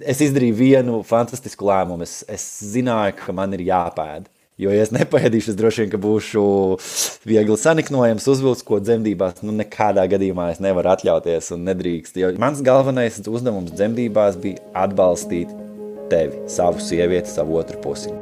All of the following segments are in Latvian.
Es izdarīju vienu fantastisku lēmumu. Es zināju, ka man ir jāpēd. Jo, ja es nepaēdīšu, es droši vien, ka būšu viegli saniknojams, uzvilks, ko dzemdībās, nekādā gadījumā es nevaru atļauties un nedrīkst. Jo mans galvenais uzdevums dzemdībās bija atbalstīt tevi, savu sievieti, savu otru pusi.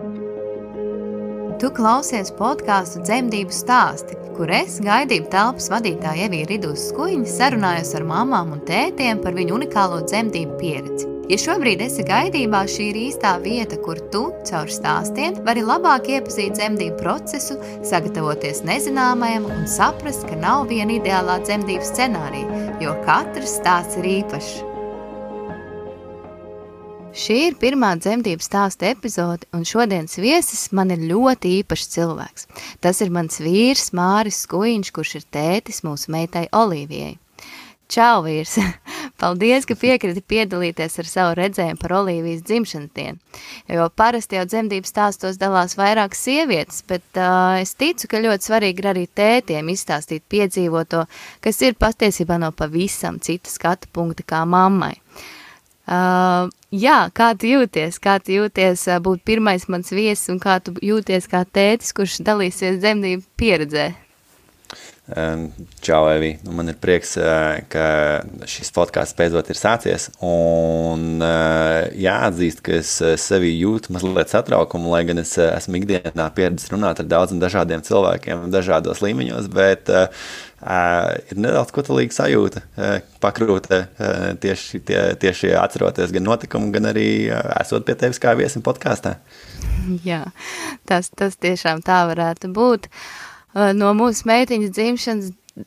Tu klausies podkāstu Dzemdību stāsti, kur es, gaidību telpas vadītāja Evija Ridūs Skuiņa, sarunājos ar mamām un tētiem par viņu unikālo dzemdību pieredzi. Ja šobrīd esi gaidībā, šī ir īstā vieta, kur tu, caur stāstiem, vari labāk iepazīt dzemdību procesu, sagatavoties nezināmajam un saprast, ka nav viena ideālā dzemdību scenārija, jo katrs stāsts ir īpašs. Šī ir pirmā dzemdību stāsta epizode, un šodienas viesis man ir ļoti īpašs cilvēks. Tas ir mans vīrs Māris Skuiņš, kurš ir tētis mūsu meitai Olīvijai. Čau, vīrs! Paldies, ka piekriti piedalīties ar savu redzējumu par Olīvijas dzimšanas dienu. Jo parasti jau dzemdību stāstos dalās vairākas sievietes, bet es ticu, ka ļoti svarīgi ir arī tētiem izstāstīt piedzīvoto, kas ir patiesībā no pavisam cita skatu punkta kā mammai. Jā, kā tu jūties? Kā tu jūties būt pirmais mans viesis un kā tu jūties kā tētis, kurš dalīsies dzemdību pieredzē? Čau, Evi. Man ir prieks, ka šis podcasts beidzot ir sācies un jāatzīst, ka es sevi jūtu mazliet satraukumu, lai gan es esmu ikdienā pieredzis runāt ar daudziem dažādiem cilvēkiem dažādos līmeņos, bet ir nedaudz kotalīga sajūta, pakrūte tieši atceroties gan notikumu, gan arī esot pie tevis kā viesim podkāstā. Jā, tas tiešām tā varētu būt. No mūsu meitiņas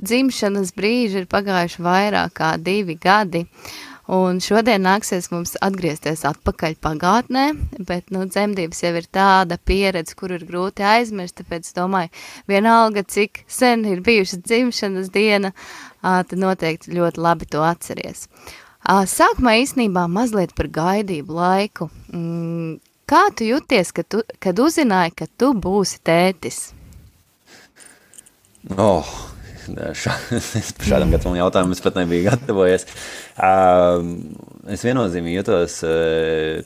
dzimšanas brīža ir pagājuši vairāk kā 2 gadi, un šodien nāksies mums atgriezties atpakaļ pagātnē, bet, dzemdības jau ir tāda pieredze, kur ir grūti aizmirst, tāpēc domāju, vienalga, cik sen ir bijušas dzimšanas diena, tad noteikti ļoti labi to atceries. Sākumā īstenībā mazliet par gaidību laiku. Kā tu jūties, kad uzzināji, ka tu būsi tētis? Šādam gatavam jautājumam es pat nebiju gatavojies. Es viennozīmīgi jūtos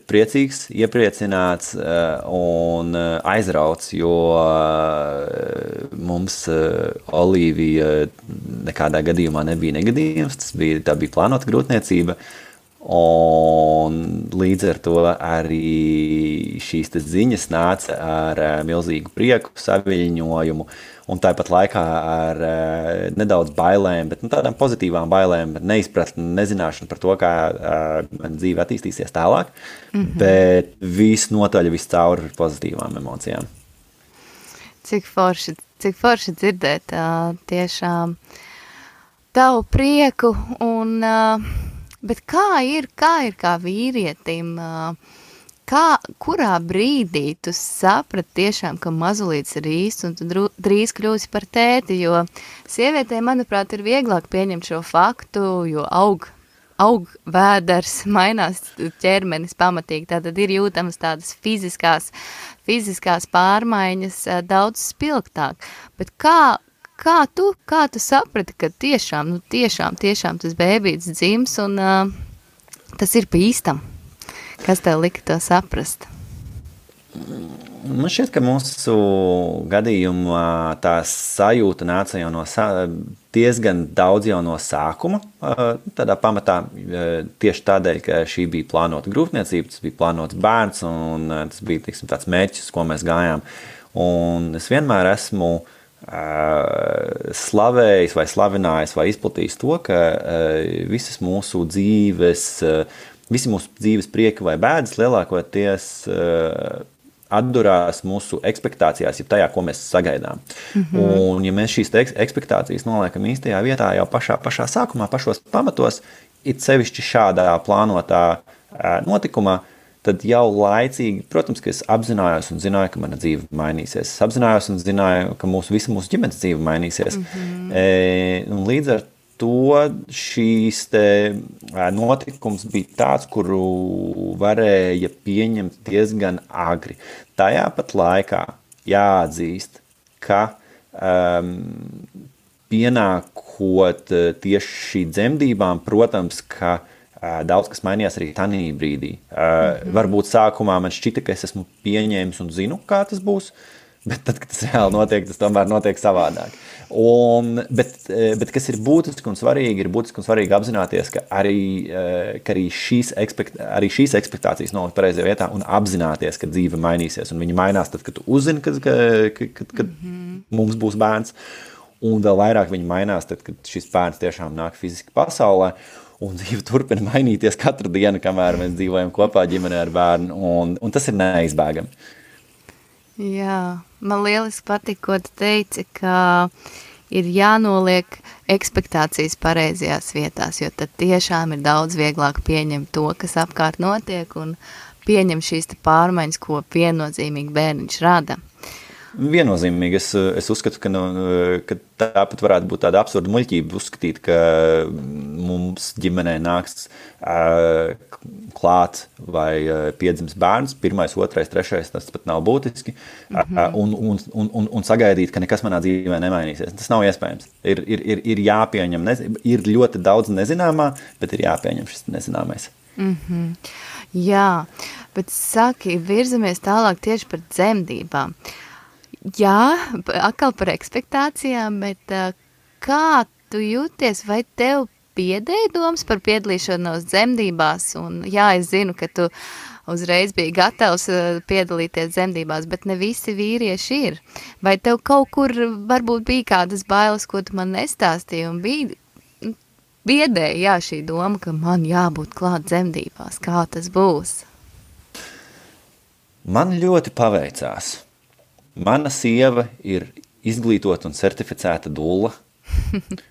priecīgs, iepriecināts un aizrauts, jo mums Olīvija nekādā gadījumā nebija negadījums, tā bija plānota grūtniecība. Un līdz ar to arī šīs ziņas nāca ar milzīgu prieku, saviļņojumu un tāpat laikā ar nedaudz bailēm, bet tādām pozitīvām bailēm, neizpratni, nezināšanu par to, kā man dzīve attīstīsies tālāk, bet visnotaļ viscaur pozitīvām emocijām. Cik forši dzirdēt tiešām tavu prieku un... Bet kā ir kā vīrietim, kurā brīdī tu saprati tiešām, ka mazulīts ir īsts un tu drīz kļūsi par tēti, jo sievietē, manuprāt, ir vieglāk pieņemt šo faktu, jo aug vēders, mainās ķermenis pamatīgi, tātad ir jūtamas tādas fiziskās pārmaiņas daudz spilgtāk, bet Kā tu saprati, ka tiešām tas bēbīts dzims un tas ir pa īstam? Kas tev lika to saprast? Man šķiet, ka mūsu gadījumā tā sajūta nāca jau diezgan daudz jau no sākuma. Tādā pamatā tieši tādēļ, ka šī bija plānota grūtniecība, tas bija plānots bērns un tas bija tāds mērķis, ko mēs gājām. Un es vienmēr esmu slavējis vai slavinājis vai izplatījis to, ka visi mūsu dzīves prieki vai bēdas lielākoties atdurās mūsu ekspektācijās, ja tajā, ko mēs sagaidām. Un ja mēs šīs ekspektācijas noliekam īstajā vietā jau pašā sākumā, pašos pamatos, it sevišķi šādā plānotā notikumā, tad jau laicīgi, protams, ka es apzinājos un zināju, ka mana dzīve mainīsies. Es apzinājos un zināju, ka visa mūsu ģimenes dzīve mainīsies. Un līdz ar to šīs notikums bija tāds, kuru varēja pieņemt diezgan agri. Tajā pat laikā jāatzīst, ka pienākot tieši šī dzemdībām, protams, ka daudz kas mainījās arī tanī brīdī. Varbūt sākumā man šķita, ka es esmu pieņēmis un zinu, kā tas būs, bet tad, kad tas reāli notiek, tas tomēr notiek savādāk. Bet kas ir būtiski un svarīgi apzināties, ka arī šīs ekspektācijas nolikt pareizajā vietā un apzināties, ka dzīve mainīsies. Un viņa mainās tad, kad tu uzzini, kad mums būs bērns. Un vēl vairāk viņa mainās tad, kad šis bērns tiešām nāk fiziski pasaulē. Un dzīve turpina mainīties katru dienu, kamēr mēs dzīvojam kopā ģimenē ar bērnu. Un tas ir neizbēgami. Jā, man lieliski patīk, ko tu teici, ka ir jānoliek ekspektācijas pareizajās vietās, jo tad tiešām ir daudz vieglāk pieņemt to, kas apkārt notiek, un pieņem šīs pārmaiņas, ko viennozīmīgi bērniņš rada. Viennozīmīgi es uzskatu, ka tāpat varētu būt tāda absurda muļķība uzskatīt, ka mums ģimenē nāks klāt vai piedzims bērns, 1., 2., 3., tas pat nav būtiski, un sagaidīt, ka nekas manā dzīvē nemainīsies. Tas nav iespējams. Ir jāpieņem, ir ļoti daudz nezināmā, bet ir jāpieņem šis nezināmais. Jā, bet saki, virzamies tālāk tieši par dzemdībām. Jā, atkal par ekspektācijām, bet kā tu jūties, vai tev biedēja domas par piedalīšanos dzemdībās? Un jā, es zinu, ka tu uzreiz biji gatavs piedalīties dzemdībās, bet ne visi vīrieši ir. Vai tev kaut kur varbūt bija kādas bailes, ko tu man nestāstīji, un biedēja, jā, šī doma, ka man jābūt klāt dzemdībās, kā tas būs? Man ļoti paveicās. Mana sieva ir izglītota un certificēta dulla,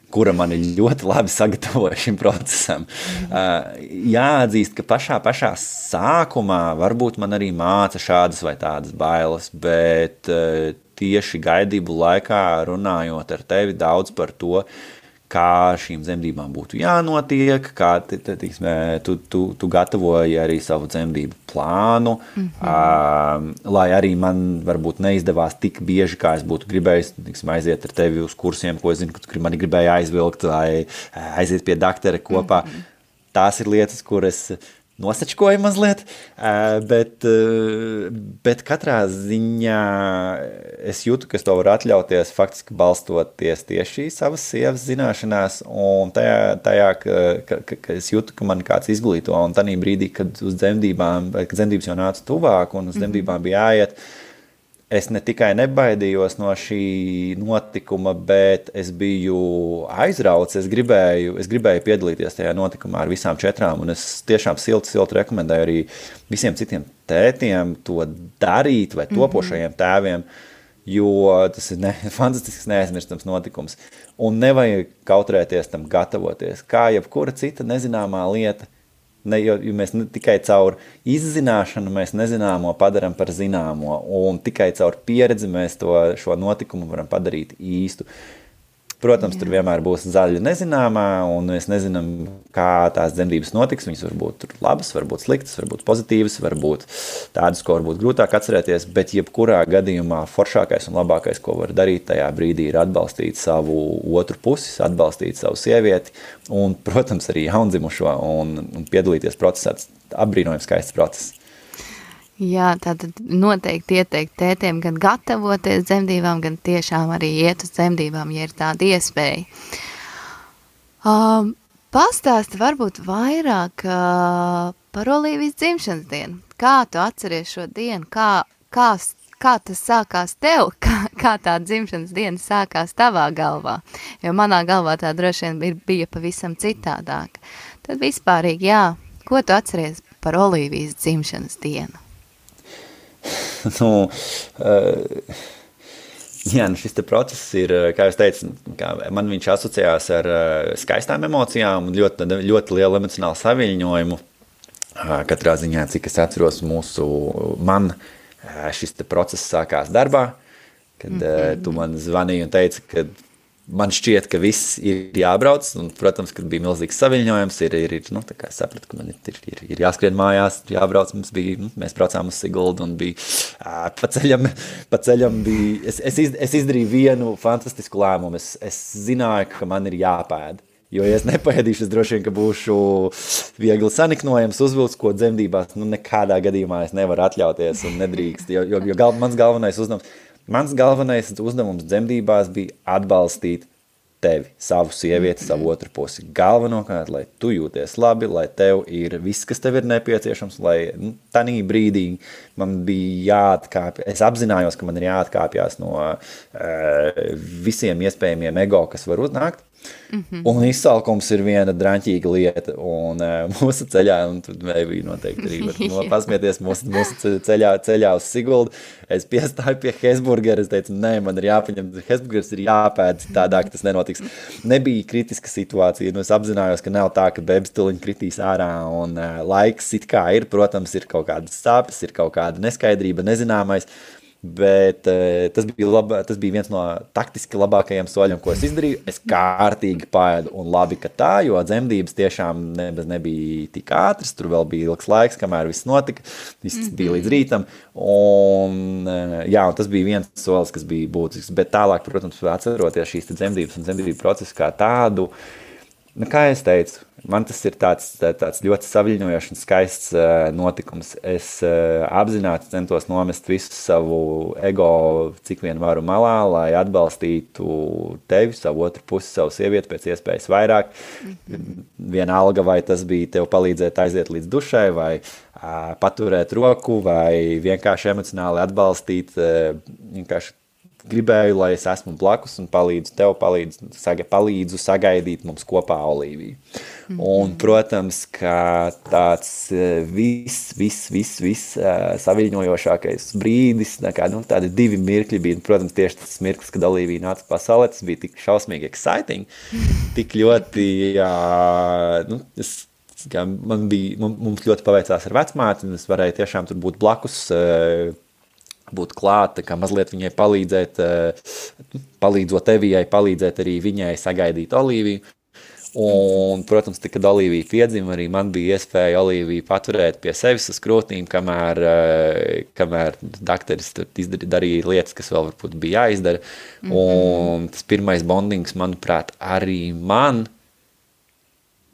kura mani ļoti labi sagatavoja šim procesam. Jāatzīst, ka pašā sākumā varbūt man arī māca šādas vai tādas bailes, bet tieši gaidību laikā runājot ar tevi daudz par to, kā šīm dzemdībām būtu jānotiek, kā tu gatavoji arī savu dzemdību plānu, lai arī man varbūt neizdevās tik bieži, kā es būtu gribējis aiziet ar tevi uz kursiem, ko es zinu, ka tu mani gribēji aizvilkt, vai aiziet pie daktera kopā. Tās ir lietas, kuras nosačkoju mazliet, bet katrā ziņā es jūtu, ka es to varu atļauties faktiski balstoties tieši savas sievas zināšanās un tajā ka es jūtu, ka man kāds izglīto un tanī brīdī, kad uz dzemdībām, vai kad dzemdības jau nāca tuvāk un uz dzemdībām bija jāiet, es ne tikai nebaidījos no šī notikuma, bet es biju aizrauts, es gribēju piedalīties tajā notikumā ar visām 4, un es tiešām silti rekomendēju arī visiem citiem tētiem to darīt vai topošajiem tēviem, jo tas ir fantastisks neaizmirstams notikums. Un nevajag kautrēties tam gatavoties, kā jebkura cita nezināmā lieta. Jo mēs tikai caur izzināšanu mēs nezināmo padaram par zināmo, un tikai caur pieredzi mēs šo notikumu varam padarīt īstu. Protams, tur vienmēr būs zaļa nezināmā, un mēs nezinām, kā tās dzemdības notiks. Viņas var būt labas, var būt sliktas, var būt pozitīvas, var būt tādas, ko varbūt grūtāk atcerēties, bet jebkurā gadījumā foršākais un labākais, ko var darīt tajā brīdī, ir atbalstīt savu otru pusi, atbalstīt savu sievieti un, protams, arī jaundzimušo un piedalīties procesā. Apbrīnojams skaists process. Jā, tātad noteikti ieteikt tētiem gan gatavoties dzemdībām, gan tiešām arī iet uz dzemdībām, ja ir tāda iespēja. Pastāsti varbūt vairāk par Olīvijas dzimšanas dienu. Kā tu atceries šo dienu? Kā tas sākās tev? Kā tā dzimšanas diena sākās tavā galvā? Jo manā galvā tā droši vien bija pavisam citādāk. Tad vispārīgi, jā, ko tu atceries par Olīvijas dzimšanas dienu? Šis te process ir, kā jūs teicu, man viņš asociējās ar skaistām emocijām un ļoti, ļoti lielu emocionālu saviļņojumu. Katrā ziņā, cik es atceros, man šis te process sākās darbā, kad tu man zvanīji un teici, ka man šķiet, ka viss ir jābrauc, un, protams, kad bija milzīgs saviļņojums, tā kā es sapratu, ka man ir jāskrien mājās, jābrauc, mēs braucām uz Siguldu, un bija pa ceļam bija, es izdarīju vienu fantastisku lēmumu, es zināju, ka man ir jāpēd, Jo, ja es nepaēdīšu, es droši vien, ka būšu viegli saniknojams, uzvilks, ko dzemdībās, nekādā gadījumā es nevaru atļauties un nedrīkst, jo mans galvenais uzdevums dzemdībās bija atbalstīt tevi, savu sievieti, savu otru pusi. Galvenokārt, lai tu jūties labi, lai tev ir viss, kas tev ir nepieciešams, lai tanī brīdī man bija jāatkāpjas, es apzinājos, ka man ir jāatkāpjas no visiem iespējamiem ego, kas var uznākt. Un izsalkums ir viena draņķīga lieta, un mūsu ceļā, un tur bija noteikti arī var pasmieties mūsu ceļā uz Siguldu, es piestāju pie Hesburgera, es teicu, nē, man ir jāpaņem, Hesburgers ir jāpēd, tādāk tas nenotiks. Nebija kritiska situācija, es apzinājos, ka nav tā, ka bebstuliņi kritīs ārā, un laiks it kā ir, protams, ir kaut kādas sāpes, ir kaut kāda neskaidrība, nezināmais, bet tas bija viens no taktiski labākajiem soļiem, ko es izdarīju. Es kārtīgi paēdu un labi, ka tā, jo dzemdības tiešām nebija tik ātras, tur vēl bija ilgs laiks, kamēr viss notika, viss bija līdz rītam, un tas bija viens solis, kas bija būtisks, bet tālāk, protams, atceroties šīs dzemdības un dzemdību procesu kā tādu, kā es teicu, man tas ir tāds ļoti saviļņojošs un skaists notikums. Es apzināti centos nomest visu savu ego, cik vien varu malā, lai atbalstītu tevi, savu otru pusi, savu sievieti pēc iespējas vairāk. Vienalga, vai tas bija tev palīdzēt aiziet līdz dušai, vai paturēt roku, vai vienkārši emocionāli atbalstīt, vienkārši gribēju, lai es esmu blakus un palīdzu tev, palīdzu sagaidīt mums kopā Olīviju. Un, protams, ka tāds viss saviļņojošākais brīdis, tādi 2 mirkļi bija, protams, tieši tas mirklis, kad Olīvija nāca pasaulē, tas bija tik šausmīgi exciting, tik ļoti, mums ļoti paveicās ar vecmāti, un es varēju tiešām tur būt blakus, būt klāt, kā mazliet viņai palīdzēt, palīdzot Evijai, palīdzēt arī viņai sagaidīt Olīviju. Un, protams, kad Olīvija piedzima, arī man bija iespēja Olīviju paturēt pie sevis uz krūtīm, kamēr dakteris darīja lietas, kas vēl varbūt bija jāizdara. Un tas pirmais bondings, manuprāt, arī man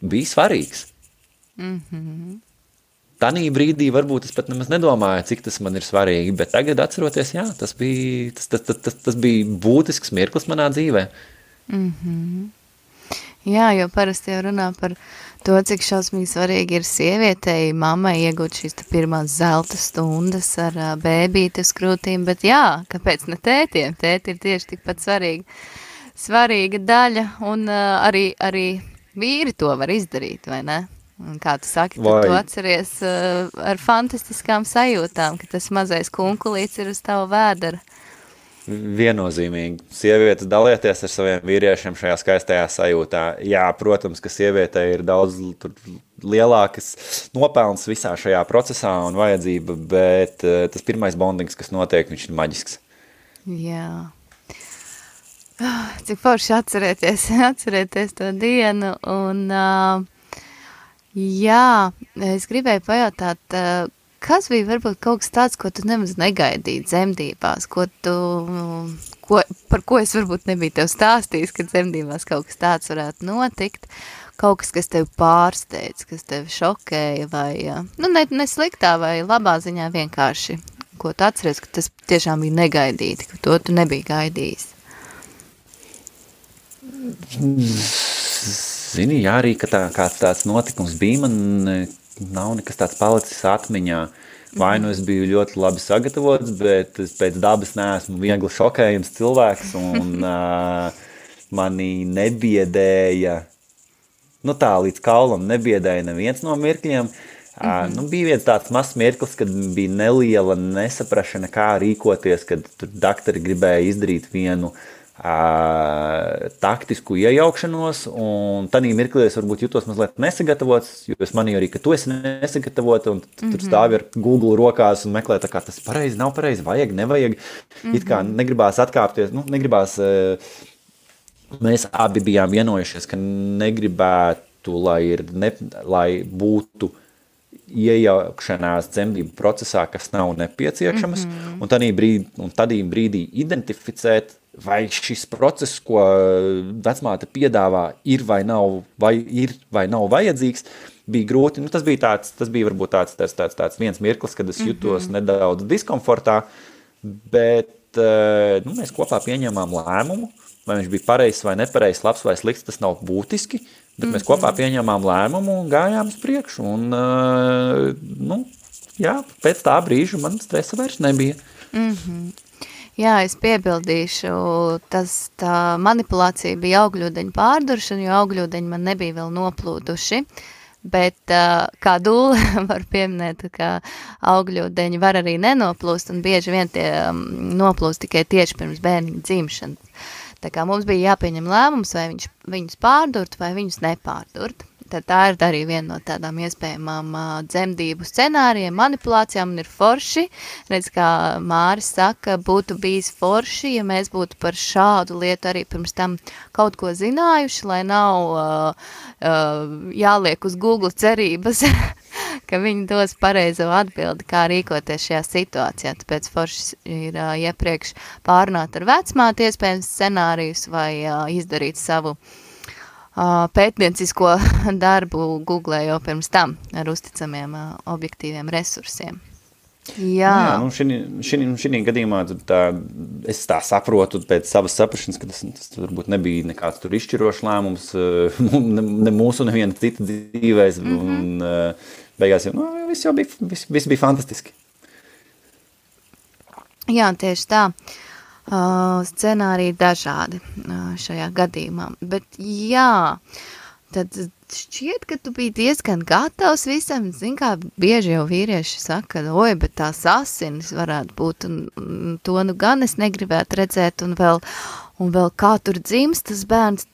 bija svarīgs. Tanī brīdī varbūt es pat nemaz nedomāju, cik tas man ir svarīgi, bet tagad atceroties, tas bija būtisks mirklis manā dzīvē. Jā, jo parasti jau runā par to, cik šausmīgi svarīgi ir sievietei, mammai iegūt šīs pirmās zelta stundas ar bēbīti uz krūtīm, bet kāpēc ne tētiem? Tēti ir tieši tikpat svarīga daļa, un arī vīri to var izdarīt, vai ne? Un kā tu saki, tad tu atceries ar fantastiskām sajūtām, ka tas mazais kunkulīts ir uz tavu vēdera. Viennozīmīgi. Sievietes dalieties ar saviem vīriešiem šajā skaistajā sajūtā. Jā, protams, ka sievietei ir daudz lielākas nopelns visā šajā procesā un vajadzība, bet tas pirmais bondings, kas notiek, viņš ir maģisks. Jā. Cik forši atcerēties to dienu un... Jā, es gribēju pajautāt, kas bija varbūt kaut kas tāds, ko tu nemaz negaidīji dzemdībās, par ko es varbūt nebiju tev stāstījis, ka dzemdībās kaut kas tāds varētu notikt, kaut kas tev pārsteidz, kas tev šokēja vai, ne sliktā vai labā ziņā vienkārši, ko tu atceries, ka tas tiešām bija negaidīti, ka to tu nebija gaidījis. Zini, arī, ka kāds tāds notikums bija, man nav nekas tāds palicis atmiņā. Vai nu es biju ļoti labi sagatavots, bet es pēc dabas neesmu viegli šokējams cilvēks, un mani nebiedēja, līdz kaulam nebiedēja neviens no mirkļiem. Bija viens tāds mazs mirklis, kad bija neliela nesaprašana, kā rīkoties, kad tur daktori gribēja izdarīt vienu taktisku iejaukšanos, un tanī mirklī es varbūt jutos mazliet nesagatavots, jo es manīju arī, ka tu esi nesagatavota, un tur stāvi ar Google rokās un meklē, tā kā tas pareizi, nav pareizi, vajag, nevajag. It kā negribās atkāpties, mēs abi bijām vienojušies, ka negribētu, lai būtu iejaukšanās dzemdību procesā, kas nav nepieciešamas, un tādī brīdī identificēt vai šis process, ko vecmāte piedāvā, ir vai nav vajadzīgs, bija grūti. Tas bija varbūt tāds viens mirklis, kad es jutos nedaudz diskomfortā, bet mēs kopā pieņēmām lēmumu, vai viņš bija pareizs vai nepareizs, labs vai slikts, tas nav būtiski, bet mēs kopā pieņēmām lēmumu un gājām uz priekšu. Un, pēc tā brīža man stresa vairs nebija. Jā, es piebildīšu, tā manipulācija bija augļūdeņu pārduršana, jo augļūdeņi man nebija vēl noplūduši, bet kā dūle var pieminēt, ka augļūdeņi var arī nenoplūst, un bieži vien tie noplūst tikai tieši pirms bērniņa dzimšanas. Tā kā mums bija jāpieņem lēmums, vai viņus pārdurt, vai viņus nepārdurt. Tad tā ir arī viena no tādām iespējamām dzemdību scenārijiem, manipulācijām, un ir forši. Redz, kā Māris saka, būtu bijis forši, ja mēs būtu par šādu lietu arī pirms tam kaut ko zinājuši, lai nav jāliek uz Google cerības, ka viņi dos pareizo atbildi, kā rīkoties šajā situācijā. Tāpēc forši ir iepriekš pārunāt ar vecmāti iespējams scenārijus vai izdarīt savu pētniecisko darbu Google jau pirms tam ar uzticamiem objektīviem resursiem. Jā, šī gadījumā es tā saprotu pēc savas saprašanas, ka tas varbūt nebija nekāds tur izšķirošs lēmums, ne mūsu, neviena cita dzīvēs, un beigās viss bija fantastiski. Jā, tieši tā. Scenāriji dažādi šajā gadījumā, bet jā, tad šķiet, ka tu biji diezgan gatavs visam, kā bieži jau vīrieši saka, bet tās asinis varētu būt, un to gan es negribētu redzēt, un vēl kā tur dzimst tas bērns,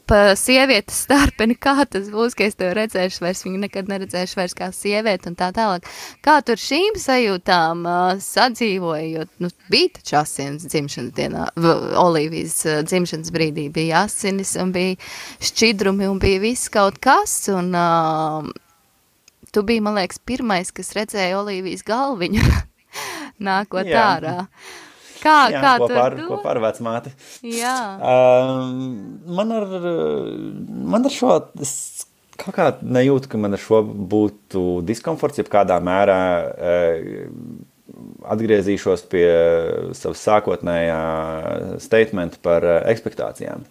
pa sievietes starpeni, kā tas būs, ka es tev redzēšu vairs, viņu nekad neredzēšu vairs kā sievieti un tā tālāk. Kā tur šīm sajūtām sadzīvoja, jo bija taču asinis dzimšanas dienā, Olīvijas dzimšanas brīdī bija asinis un bija šķidrumi un bija viss kaut kas, un tu biji, man liekas, pirmais, kas redzēja Olīvijas galviņu nākot ārā. Kā kopā ar vecmāti. Jā. Man ar šo, es kaut kā nejūtu, ka man ar šo būtu diskomforts, ja kādā mērā atgriezīšos pie savas sākotnējā statementa par ekspektācijām.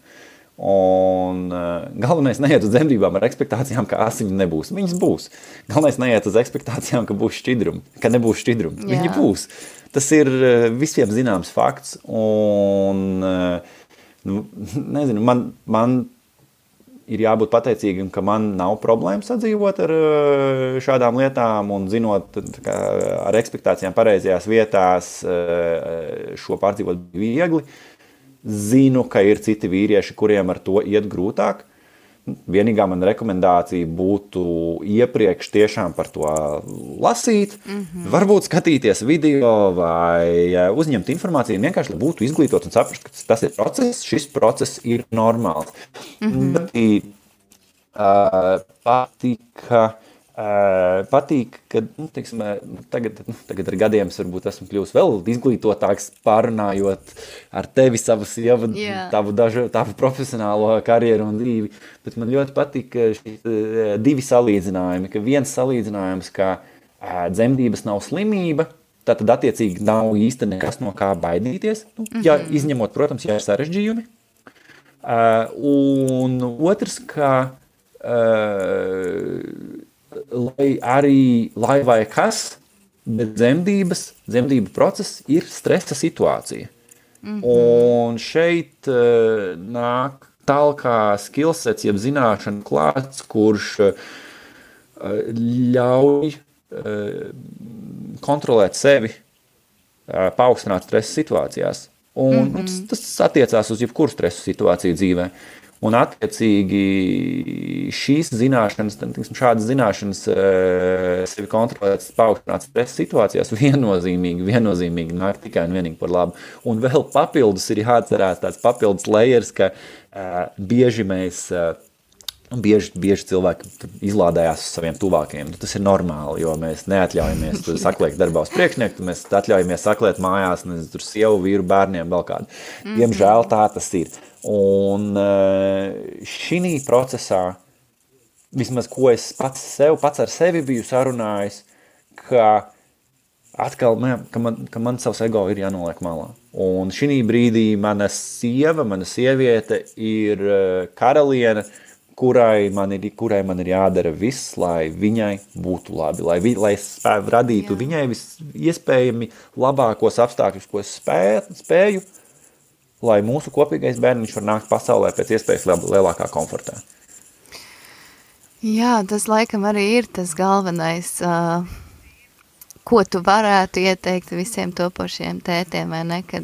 Un galvenais neiet uz dzemdībām ar ekspektācijām, ka asiņu nebūs. Viņas būs. Galvenais neiet uz ekspektācijām, ka būs šķidrumi, ka nebūs šķidrumi. Viņi būs. Tas ir visiem zināms fakts, un nezinu, man ir jābūt pateicīgam, ka man nav problēma sadzīvot ar šādām lietām, un zinot ar ekspektācijām pareizajās vietās šo pārdzīvot viegli. Zinu, ka ir citi vīrieši, kuriem ar to iet grūtāk. Vienīgā man rekomendācija būtu iepriekš tiešām par to lasīt, varbūt skatīties video vai uzņemt informāciju, vienkārši, lai būtu izglītot un saprast, ka tas ir process, šis process ir normāls. Patīk, ka teiksim, tagad ar gadiem varbūt esmu kļuvis vēl izglītotāks, pārunājot ar tevi tavu profesionālo karjeru un dzīvi, bet man ļoti patīk divi salīdzinājumi, ka viens salīdzinājums, ka dzemdības nav slimība, tātad attiecīgi nav īsti nekas no kā baidīties, ja izņemot, protams, ja ir sarežģījumi, un otrs, ka lai vai kas, bet dzemdību process ir stresa situācija. Un šeit nāk tālākā skillsets, jeb zināšana klāts, kurš ļauj kontrolēt sevi, paaugstināt stresa situācijās. Un tas attiecās uz jebkuru stresa situāciju dzīvē. Un attiecīgi šīs zināšanas, šādas zināšanas sevi kontrolēt, paaugstināt stresa situācijās viennozīmīgi nāk tikai un vienīgi par labu. Un vēl papildus ir jāatcerās tāds papildus layers, ka bieži mēs Bieži cilvēki izlādējās uz saviem tuvākajiem. Tas ir normāli, jo mēs neatļaujamies saklēt darbā uz priekšnieku, mēs atļaujamies saklēt mājās, tur sievu, vīru, bērniem, vēl kādu. Diemžēl tā tas ir. Un šī procesā, vismaz ko es pats ar sevi biju sarunājis, ka atkal, ka man savs ego ir jānoliek malā. Un šī brīdī mana sieviete ir karaliene, kurai man ir jādara viss, lai viņai būtu labi, lai es radītu viņai iespējami labākos apstākļus, ko es spēju, lai mūsu kopīgais bērniņš var nākt pasaulē pēc iespējas lielākā komfortā. Jā, tas laikam arī ir tas galvenais, ko tu varētu ieteikt visiem topošiem tētiem, vai ne, kad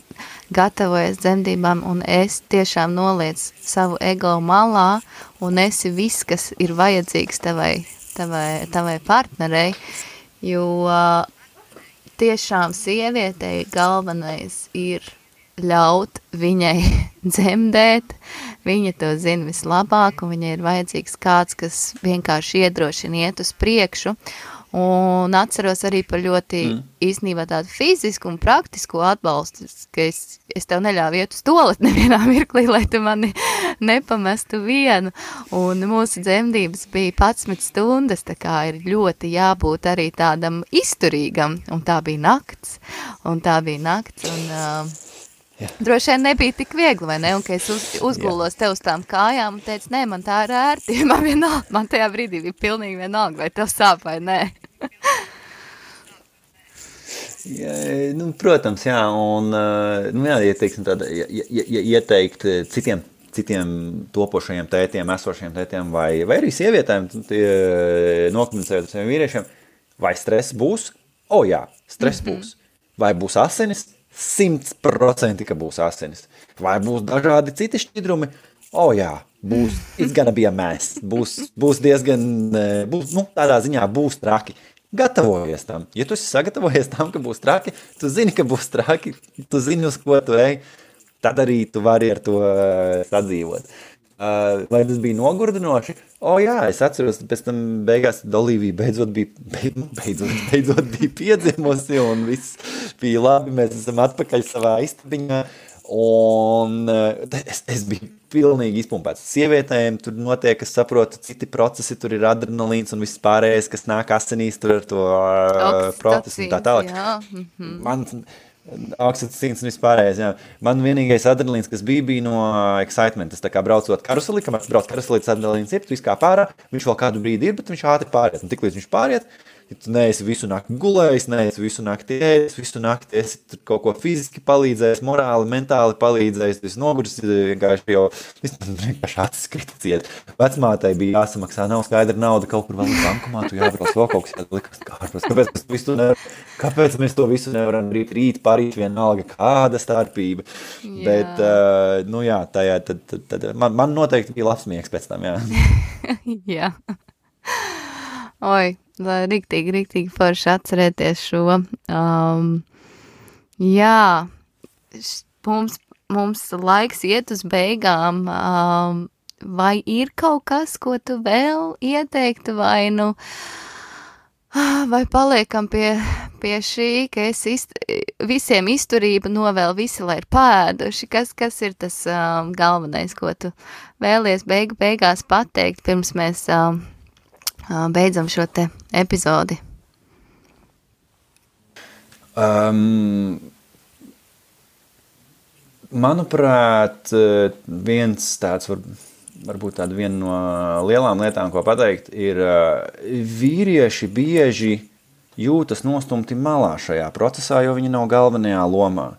gatavojies dzemdībām un es tiešām noliec savu ego malā un esi viss, kas ir vajadzīgs tavai partnerei, jo tiešām sievietei galvenais ir ļaut viņai dzemdēt, viņa to zina vislabāk un viņai ir vajadzīgs kāds, kas vienkārši iedrošina iet uz priekšu. Un atceros arī par ļoti īstenībā tādu fizisku un praktisku atbalstu, ka es tev neļāvu iet uz toaleti nevienā mirklī, lai tu mani nepamestu vienu. Un mūsu dzemdības bija 11 stundas, tā kā ir ļoti jābūt arī tādam izturīgam. Un tā bija nakts. Un droši vien nebija tik viegli, vai ne? Un, ka es uzgulos tev uz tām kājām un teicu, nē, man tā ir ērti. Man tajā brīdī bija pilnīgi vienalga, vai tev sāp vai nē. Ja, protams, jā. Un, ieteikt citiem topošajiem tētiem, esošajiem tētiem vai arī sievietēm, nokomunicējot ar saviem vīriešiem, vai stress būs? Jā, stress būs. Vai būs asinis? 100% ka būs asinis. Vai būs dažādi citi šķidrumi? Jā, būs, it's gonna be a mess. Būs diezgan, tādā ziņā būs traki. Gatavojies tam. Ja tu esi sagatavojies tam, ka būs traki, tu zini, ka būs traki, tu zini, uz ko tu ej, tad arī tu vari ar to sadzīvot. Vai tas bija nogurdinoši? Jā, es atceros, pēc tam beigās Olivija beidzot bija piedzimusi un viss bija labi, mēs esam atpakaļ savā istabiņā un es biju pilnīgi izpumpēts. Sievietēm tur notiek, es saprotu, citi procesi, tur ir adrenalīns un viss pārējais, kas nāk asinīs tur ar to procesu un tā tālāk. Man oksitocīns un vispārējais, jā. Man vienīgais adrenalīns, kas bija no excitement. Es tā kā braucot karuseli, kamēr brauc karuselī, tas adrenalīns ir, tu viss kā pārā, viņš vēl kādu brīdi ir, bet viņš ātri pāriet. Un tiklīdz viņš pāriet, ja tu neesi visu nakti gulējis, neesi visu nakti ēdis, visu nakti esi tur kaut ko fiziski palīdzējis, morāli, mentāli palīdzējis, tu esi noguris, vienkārši acis kritieciet. Vecmātei bija jāsamaksā, nav skaidra nauda, kaut kur vēl bankomātu jābrauc, vēl kaut kas jālikas kārpros. Kāpēc mēs to visu nevaram rīt, parīt vienalga, kāda starpība? Jā. Bet, jā, tad man noteikti bija labs miegs pēc tam, jā. Jā. Oi, riktīgi forši atcerēties šo. Jā, mums laiks iet uz beigām. Vai ir kaut kas, ko tu vēl ieteiktu, vai paliekam pie šī, ka visiem izturība novēl visi, lai ir pēduši? Kas ir tas galvenais, ko tu vēlies beigās pateikt, pirms mēs beidzam šo te epizodi? Manuprāt, viens tāds varbūt tāda viena no lielām lietām, ko pateikt, ir vīrieši bieži jūtas nostumti malā šajā procesā, jo viņi nav galvenajā lomā.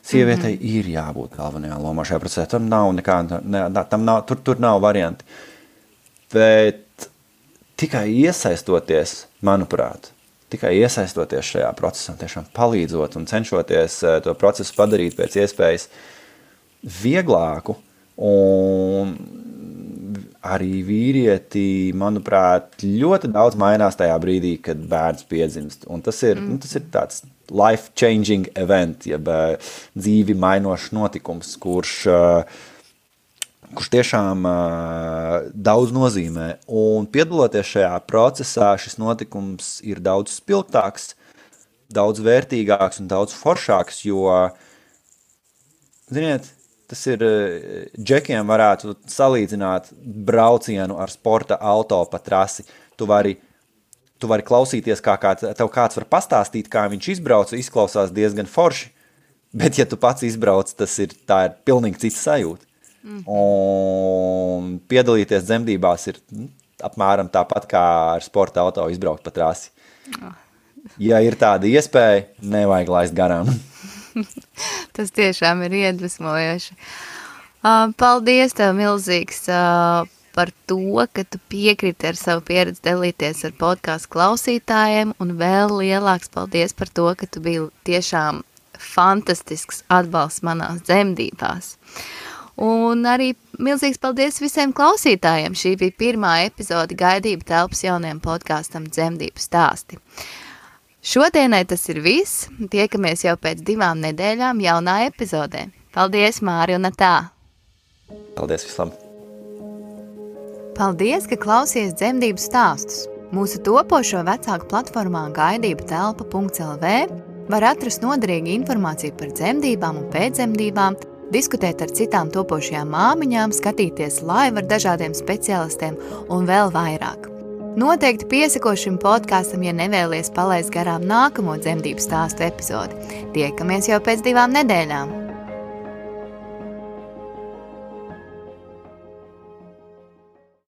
Sievietei ir jābūt galvenajā lomā šajā procesā. Tam nav tur nav varianti. Bet tikai iesaistoties, manuprāt, šajā procesā, tiešām palīdzot un cenšoties to procesu padarīt pēc iespējas vieglāku, un arī vīrieti, manuprāt, ļoti daudz mainās tajā brīdī, kad bērns piedzimst. Un tas ir tāds life-changing event, jeb dzīvi mainošs notikums, kurš kurš tiešām daudz nozīmē. Un piedaloties šajā procesā, šis notikums ir daudz spilgtāks, daudz vērtīgāks un daudz foršāks, jo, ziniet, tas ir, džekiem varētu salīdzināt braucienu ar sporta auto pa trasi. Tu vari klausīties, tev kāds var pastāstīt, kā viņš izbrauca, izklausās diezgan forši, bet ja tu pats izbrauc, tā ir pilnīgi cits sajūta. Un piedalīties dzemdībās ir apmēram tāpat kā ar sporta auto izbraukt pa trasi. Ja ir tāda iespēja, nevajag laist garām. Tas tiešām ir iedvesmojoši. Paldies tev milzīgs par to, ka tu piekriti ar savu pieredzi dalīties ar podcastu klausītājiem, un vēl lielāks paldies par to, ka tu biji tiešām fantastisks atbalsts manās dzemdībās. Un arī milzīgs paldies visiem klausītājiem. Šī bija pirmā epizode Gaidību telpas jaunajam podkastam Dzemdību stāsti. Šodienai tas ir viss. Tiekamies jau pēc 2 nedēļām jaunā epizodē. Paldies, Māri un Atā! Paldies visam! Paldies, ka klausies dzemdību stāstus. Mūsu topošo vecāku platformā gaidībutelpa.lv var atrast noderīgu informāciju par dzemdībām un pēcdzemdībām, diskutēt ar citām topošajām māmiņām, skatīties live ar dažādiem speciālistiem un vēl vairāk. Noteikti piesako šim podkastam, ja nevēlies palaist garām nākamo dzemdību stāstu epizodi. Tiekamies jau pēc 2 nedēļām!